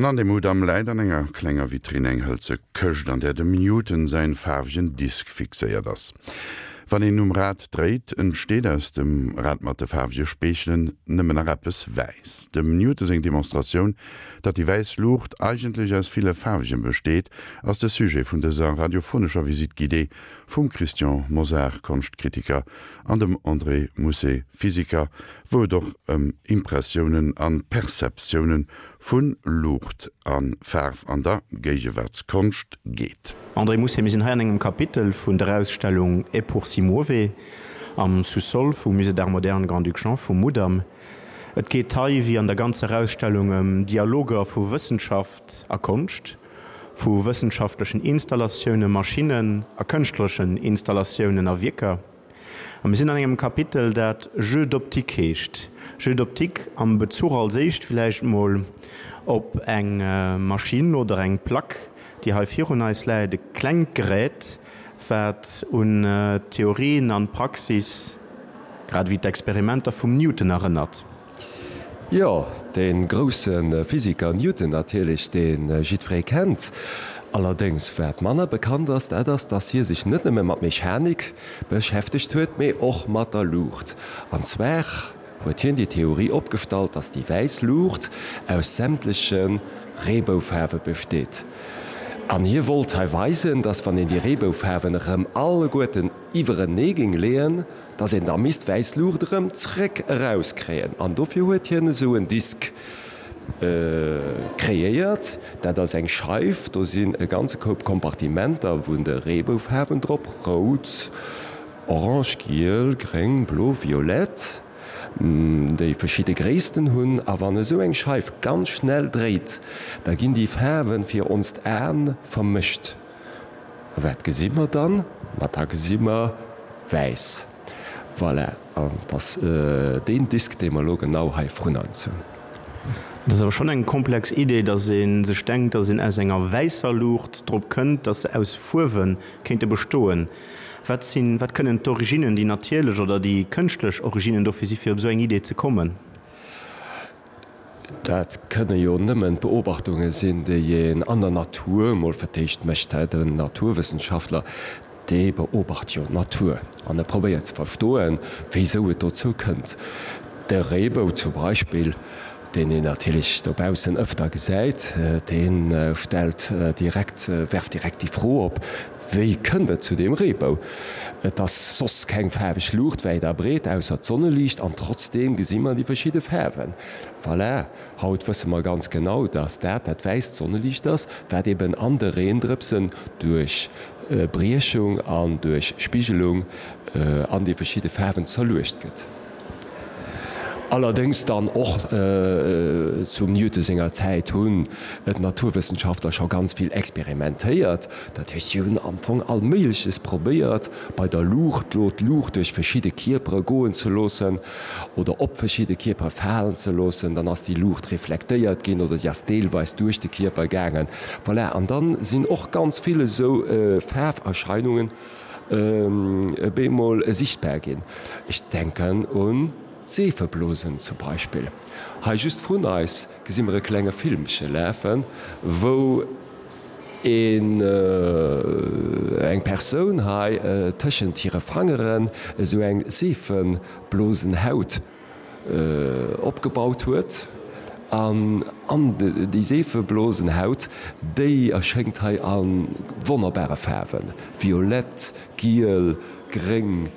An an dem Mudam läit an enger klenger Vitrinn eng hëlze Këscht, an där dem Newton säin faarwegen Disk fixéiert ass. Wann een um Rad dréit, entsteet aus dem Rad mat de faarwege Speechelen nëmmen nach eppes wäiss. Dem Newton seng Demonstratioun, datt déi wäiss Luucht eigentlech aus ville faarwegen besteet, ass de Sujet vun dëser radiophonescher Visite guidée vum Christian Mosar, Konschtkritiker, an dem André Mousset, Physiker, wou et och ëm Impressiounen an Perceptiounen vu Luucht a Faarf an der Géigewaartskonscht geet. André Mousset, Mir sinn hei an engem Kapitel vun der Ausstellung Et pour si muove am Sous-sol vum Musée d'Art moderne Grand-Duc Jean vum Mudam. Et geet hei, wéi an der ganzer Ausstellung, ëm Dialoger vu Wëssenschaft a Konscht, vu wëssenschaftlechen Installatiounen, Maschinnen a kënschtlerechen Installatiounen a Wierker. A mir sinn an engem Kapitel, dat Jeux d'optique heescht. Jeux d'optique am Bezuch als éischt villäicht mol op eng Maschinn oder eng Plack, déi hei virun eis läit, e klengt Gerät, wat un d'Theorien an d'Praxis grad ewéi d'Experimenter vum Newton erënnert. Jo, dee grousse Physiker Newton natierlech, dee jiddweree kennt. Allerdéngs, wat manner bekannt ass, dat ass, dass hie sech net nëmme mat Mechanik beschäftegt huet, mee och mat der Luucht. An zwar huet hien déi Theorie opgestallt, dass déi wäiss Luucht aus sämtleche Reeboufaarwe besteet. An hie wollt hei weisen, dass wann een déi Reeboufaarwen erëm alleguerten iwwerenee géing leeën, dass een da misst wäiss Luucht erëm zréck erauskréien an dofir huet hien esou en Disk kreéiert. Dat ass eng Scheif, do sinn e ganze Koup Kompartimenter vun de Reeboufaarwen drop, rout, orange, giel, gréng, blo, violett, déi verschidde Gréissten hunn. A wann esou eng Scheif ganz schnell dréit, da ginn déi Faarwe fir onst Aen vermëscht. A wat gesi mer dann? Ma da gesi mer wäiss. Voilà, an et ass deen Disk, dee mer elo genau hei vrun eis hunn. Et ass awer schonn eng komplex Idee, datt ee sech denkt, datt een aus enger wäisser Luucht drop kënnt, datt se aus Fuerwe kéinte bestoen. Wat sinn, wat kënnen d'Originnen, déi natierlech oder déi kënschtlech Originnen dofir si fir op esou eng Idee ze kommen? Dat kënne jo nëmmen d'Beobachtunge sinn, déi een an der Natur emol fir d'éischt mécht. Den Naturwëssenschaftler, dee beobacht jo d'Natur an e probéiert ze verstoen, wéisou et dozou kënnt. De Reebou zum Beispill, deen een natierlech dobaussen ëfter gesäit, dee stellt direkt, werft direkt déi Fro op, Wéi kënnt et zu deem Reebou? Et ass soss keng faarweg Luucht wäit a breet, ausser d'Sonneliicht, an trotzdeem gesi mer déi verschidde Faarwen. Voilà, haut wësse mer ganz genau, dass dat dat wäisst Sonneliicht ass, wat eben an de Reendrëpsen duerch Briechung an duerch Spigelung an déi verschidde Faarwen zerluecht gëtt. Allerdéngs dann och zum Newton senger Zäit hunn d'Naturwëssenschaftler scho ganz vill experimentéiert. Dat heescht, si hunn am Fong all Méigleches probéiert bei der Luucht, lo d'Luucht duerch verschidde Kierpere goen ze loossen oder op verschidde Kierpere falen ze loossen. Dann ass déi Luucht reflektéiert ginn oder si ass deelweis duerch de Kierper gaangen. Voilà, an dann sinn och ganz vill esou Faarferscheinungen bemol sichtbar ginn. Ech denken un d'Seefeblosen zum Beispill. Hei just vrun eis gesi mer e klenge Filmche lafen, wou een, eng Persoun hei tëschent hire Fangeren esou eng Seefeblosenhaut opgebaut huet an an déi Seefeblosenhaut, déi erschéngt hei a wonnerbare Faarwen, violett, giel, gréng,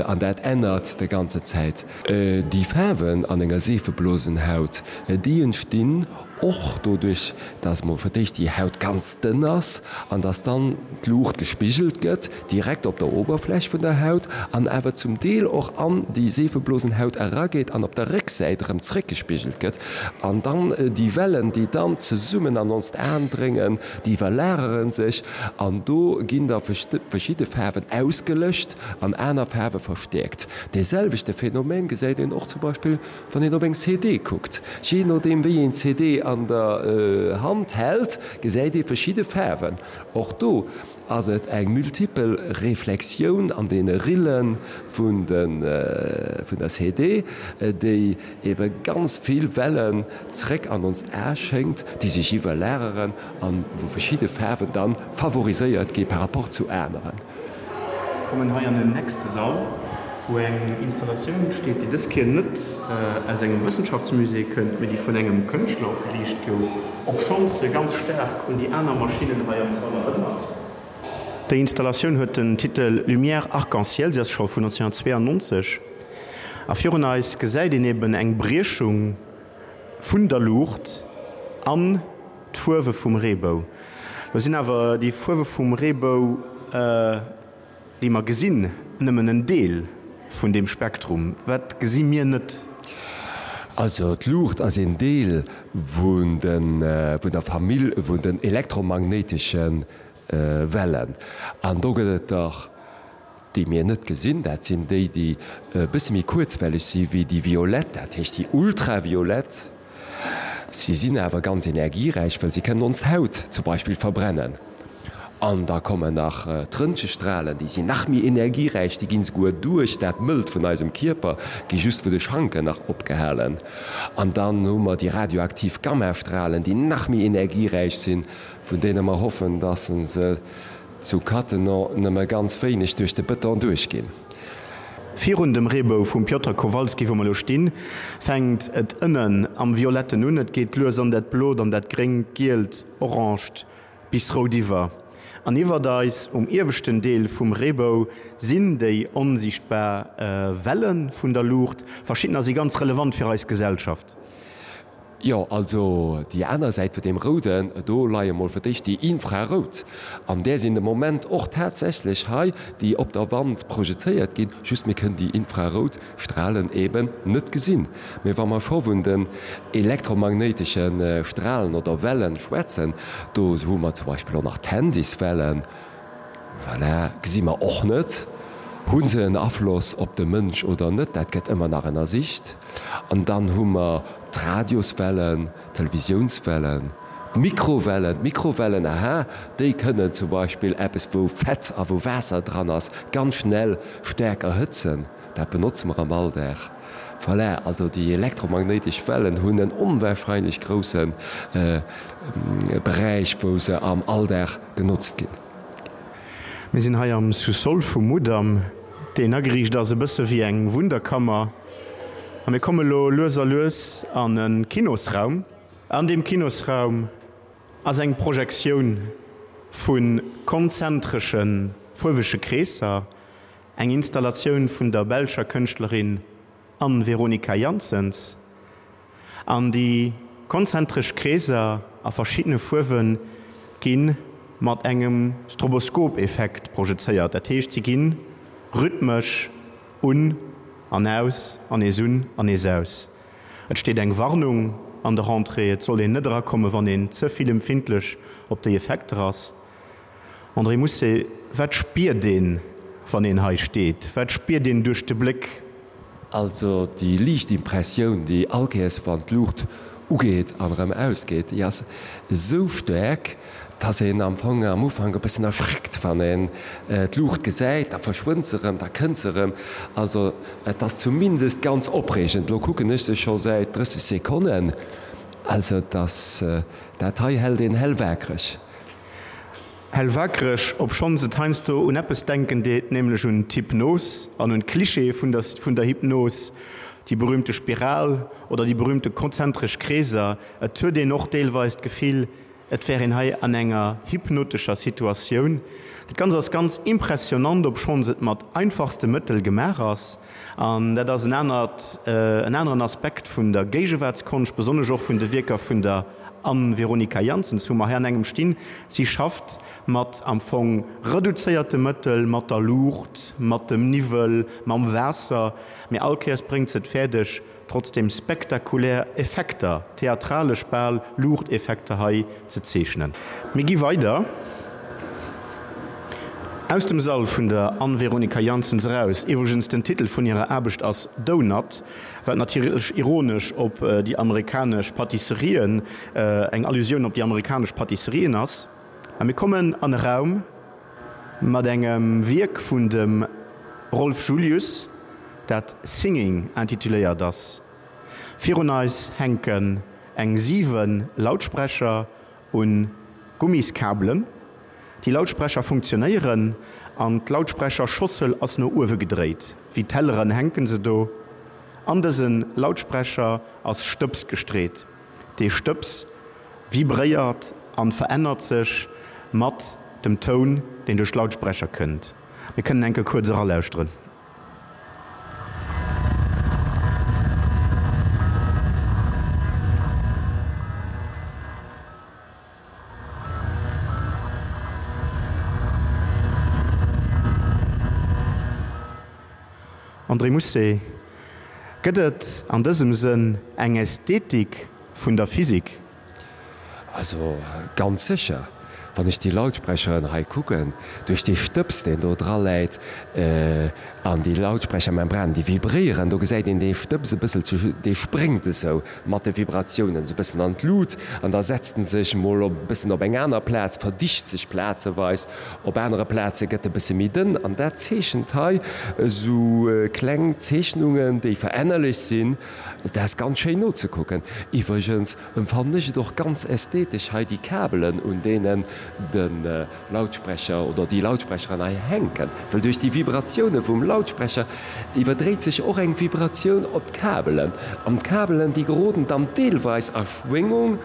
an dat ännert de ganze Zäit. Déi Faarwen an enger Seefeblosenhaut, déi entstinn och doduerch, dass mol fir d'éischt déi Haut ganz dënn ass an dass dann d'Luucht gespigelt gëtt direkt op der Oberfläch vun der Haut an awer zum Deel och an déi Seefeblosenhaut erageet an op der Récksäit erëm zréckgespigelt gëtt an dann déi Wellen, déi dann zesummen an onst Aen dréngen, déi iwwerlagere sech an do ginn da verschidde Faarwen ausgelëscht an aner Faarwe verstäerkt. Dee selwechte Phänomen gesäit een och zum Beispill Wann een op eng CD kuckt, jee nodeem wéi een d'CD an. an der Hand hält, gesäit ee verschidde Faarwen. Och do ass et eng multipel Reflexioun an deene Rille vun der CD, déi ebe ganz vill Wellen zréck an onst A schéngt, déi sech iwwerlageren an wou verschidde Faarwen dann favoriséiert gi par rapport zu aneren. Kommen hei an den nächste Sall, wou eng Installatioun steet, déi dës Kéier net aus engem Wëssenschaftsmusée kënnt, mee déi vun engem Kënschtler opgeriicht gouf, obschonns se ganz staark un déi aner Maschinnen hei am Sall erënnert. Déi Installatioun huet den Titel Lumière arc-en-ciel, si ass scho vun 1992 a virun eis gesäit een eben eng Briechung vun der Luucht an d'Fuerwe vum Reebou. Lo sinn awer déi Fuerwe vum Reebou, déi mer gesinn, nëmmen en Deel vun deem Spektrum. Wat gesi mir net? Also d'Luucht ass een Deel vun der Famill vun den elektromagnéitesche Wellen. An do gëtt et der, déi mir net gesinn, dat sinn déi, déi e bësse méi kuerzwelleg si wéi déi violett, dat heescht déi ultraviolett. Si sinn awer ganz energieräich, well si kënnen ons Haut zum Beispill verbrennen. An da kommen nach d'Röntgestralen, déi sinn nach méi energieräich, déi ginn esouguer duerch dat Mëllt vun eisem Kierper, gi just vu de Schanken nach opgehalen. An dann hu mer déi radioaktiv Gammastralen, déi nach méi energieräich sinn, vun deene mer hoffen, dass se zu Cattenom nëmme ganz wéineg duerch de Bëton duerchginn. Virun dem Reebou vum Piotr Kowalski, wou mer elo stinn, fänkt et ënnen am Violetten un. Et geet lues an dat Blot, an dat Gréngt, Gielt, Orangt bis Rout iwwer. An iwwert eis, um ieweschten Deel vum Reebou, sinn déi onsiichtbar Welle vun der Luucht. Verschiddener si ganz relevant fir eis Gesellschaft. Jo, also déi aner Säit vun deem Rouden, do leie mol fir d'éischt déi Infrarout, an där sinn de Moment och tatsächlech hei, déi op der Wand projezéiert ginn, just mir kënnen déi infrarout Stralen eben net gesinn. Mee wa mer scho vun den elektromagnéitesche Stralen oder Wellen schwätzen, do hu mer zum Beispill och nach d'Handyswellen, Voilà, gesi mer och net. Hu se en Afloss op de Mënsch oder net? Dat gëtt ëmmer nach ënnersicht. An dann hu mer d'Radioswellen, d'Televisiounswellen, d'Mikrowellen. D'Mikrowellen, aha, déi kënnen zum Beispill eppes, wou Fett a wou Waasser dran ass, ganz schnell staark erhëtzen. Dat benotze mer am Alldag. Voilà, also déi elektromagnéitesch Wellen hunn en onwahrscheinlech grousse Beräich, wou se am Alldag genotzt ginn. Mir sinn hei am Sous-sol vum Mudam, deen ageriicht ass e bësse wéi eng Wunderkammer. A mir komme lo lues a lues an e Kinosraum. An deem Kinosraum ass eng Projektioun vu konzentresche fuerwege Kreesser, Eng Installatioun vun der belscher Kënschtlerin Anne-Veronica Janssens. An déi konzentresch Kreeser a verschiddene Fuerwe gi mat engem Stroboskop-Effekt projezéiert, dat heescht si gi rhythmesch un an aus an nees un an nees aus. Et steet eng Warnung an der Entrée, et soll een net erakommen, wann een ze vill empfindlech op déi Effekter ass. André Mousset, Wat spiert een, wann een hei steet? Wat spiert een duerch de Bléck? Also déi liicht Impressioun, déi all Kéiers wann d'Luucht ugeet an erëm ausgeet, déi ass esou staark, dass een am Fong am Ufank e bëssen erschreckt, wann een d'Luucht gesäit. Da verschwënnt se erëm, da kënnt se erëm. Also et ass zumindest ganz opreegend. Elo kucken ech se scho säit 30 Sekonnen. Also et ass, dat hei hält een hellwaakreg. Hellwakereg, obschonns et heiansdo un eppes denken deet, nämlech un d'Hypnos an un d'Clichéë vun der vun der Hypnos, déi berühmte Spiral oder déi berühmte konzentresch Kreeser. Et huet een och deelweis d'Gefill, et wär een hei an enger hypnotescher Situatioun. Dat Ganzt ass ganz impressionant, obschonns et mat einfachste Mëttel gemaach ass. An dat ass en anert, en aneren Aspekt vun der Géigewaartskonscht, besonnesch och vun de Wierker vun der Anne-Veronica Janssens, wou mer hei an engem stinn. Si schafft mat am Fong reduzéierte Mëttel, mat der Luucht, mat dem Niwwel, mam Waasser, mee all Kéiers bréngt se et fäerdeg, trotzdem spektakulär Effekter, theatralesch bal Luuchteffekter hei ze zeechnen. Mir gi weider. Aus dem Sall vun der Anne-Veronica Janssens eraus. Iwwregens, den Titel vun hirer Aarbecht ass Doughnut, wat natierlech ironesch op déi amerikanesch Patisserien, eng Allusioun op déi amerikanesch Patisserien ass. A mir kommen an e Raum mat engem Wierk vun dem Rolf Julius, dat Singing intituléiert ass. Virun eis hänken eng 7 Lautsprecher un Gummiskabelen. Déi Lautsprecher funktionéieren an d'Lautsprecherschossel ass no uewe gedréit. Wéi Telleren hänken se do. An dëse Lautsprecher ass Stëbs gestreet. Dee Stëbs vibréiert an verännert sech mat dem Toun, deen duerch d'Lautsprecher kënnt. Mir kënnen enke kuerz eralauschteren. André Mousset, Gëtt et an dësem Sënn eng Ästhetik vun der Physik? Also ganz sécher, wann ech déi Lautsprecheren hei kucken, duerch dee Stëbs deen do dra läit an déi Lautsprechermembranen déi vibréieren, do gesäit een dee Stëbs e bësselche, dee spréngt esou mat de Vibratiounen esou e bëssen an d'Lut an da setzt en sech mol op e bëssen op eng aner Plaz, verdicht sech plazeweis, op anere Plaze gëtt e bësse méi dënn an dat zeechent hei esou kleng Zeechnungen, déi verännerlech sinn. Dat ass ganz schéin nozekucken. Iwwregens Emfannen ech et och ganz ästhetesch hei déi Kabelen un deenen de Lautsprecher oder déi Lautsprecheren hei hänken, well duerch déi Vibratioune vum Lautsprecher iwwerdréit sech och eng Vibratioun op d'Kabelen an d'Kabelen déi geroden dann deelweis a Schwéngung,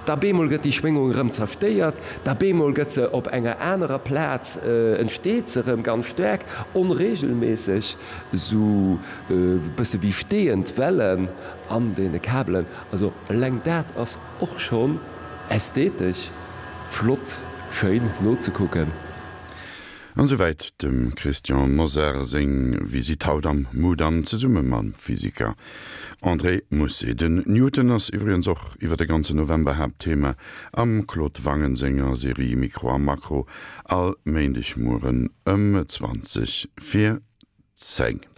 da bemol gëtt déi Schwéngung erëm zerstéiert, da bemol gëtt se op enger anerer Plaz entsteet se erëm ganz staark onregelméisseg, esou e bësse wéi steeënd Wellen an deene Kabelen. Also eleng dat ass och schonn ästhetesch flott, schéin nozekucken. An esouwäit dem Christian Mosar seng Visitt haut am Mudam zesumme mam Physiker André Mousset. Den Newton ass iwwregens och iwwer de ganzen November Haaptthema am Claude Wangen senger Serie Mikro a Makro all Méindegmueren ëm 20 vir 10.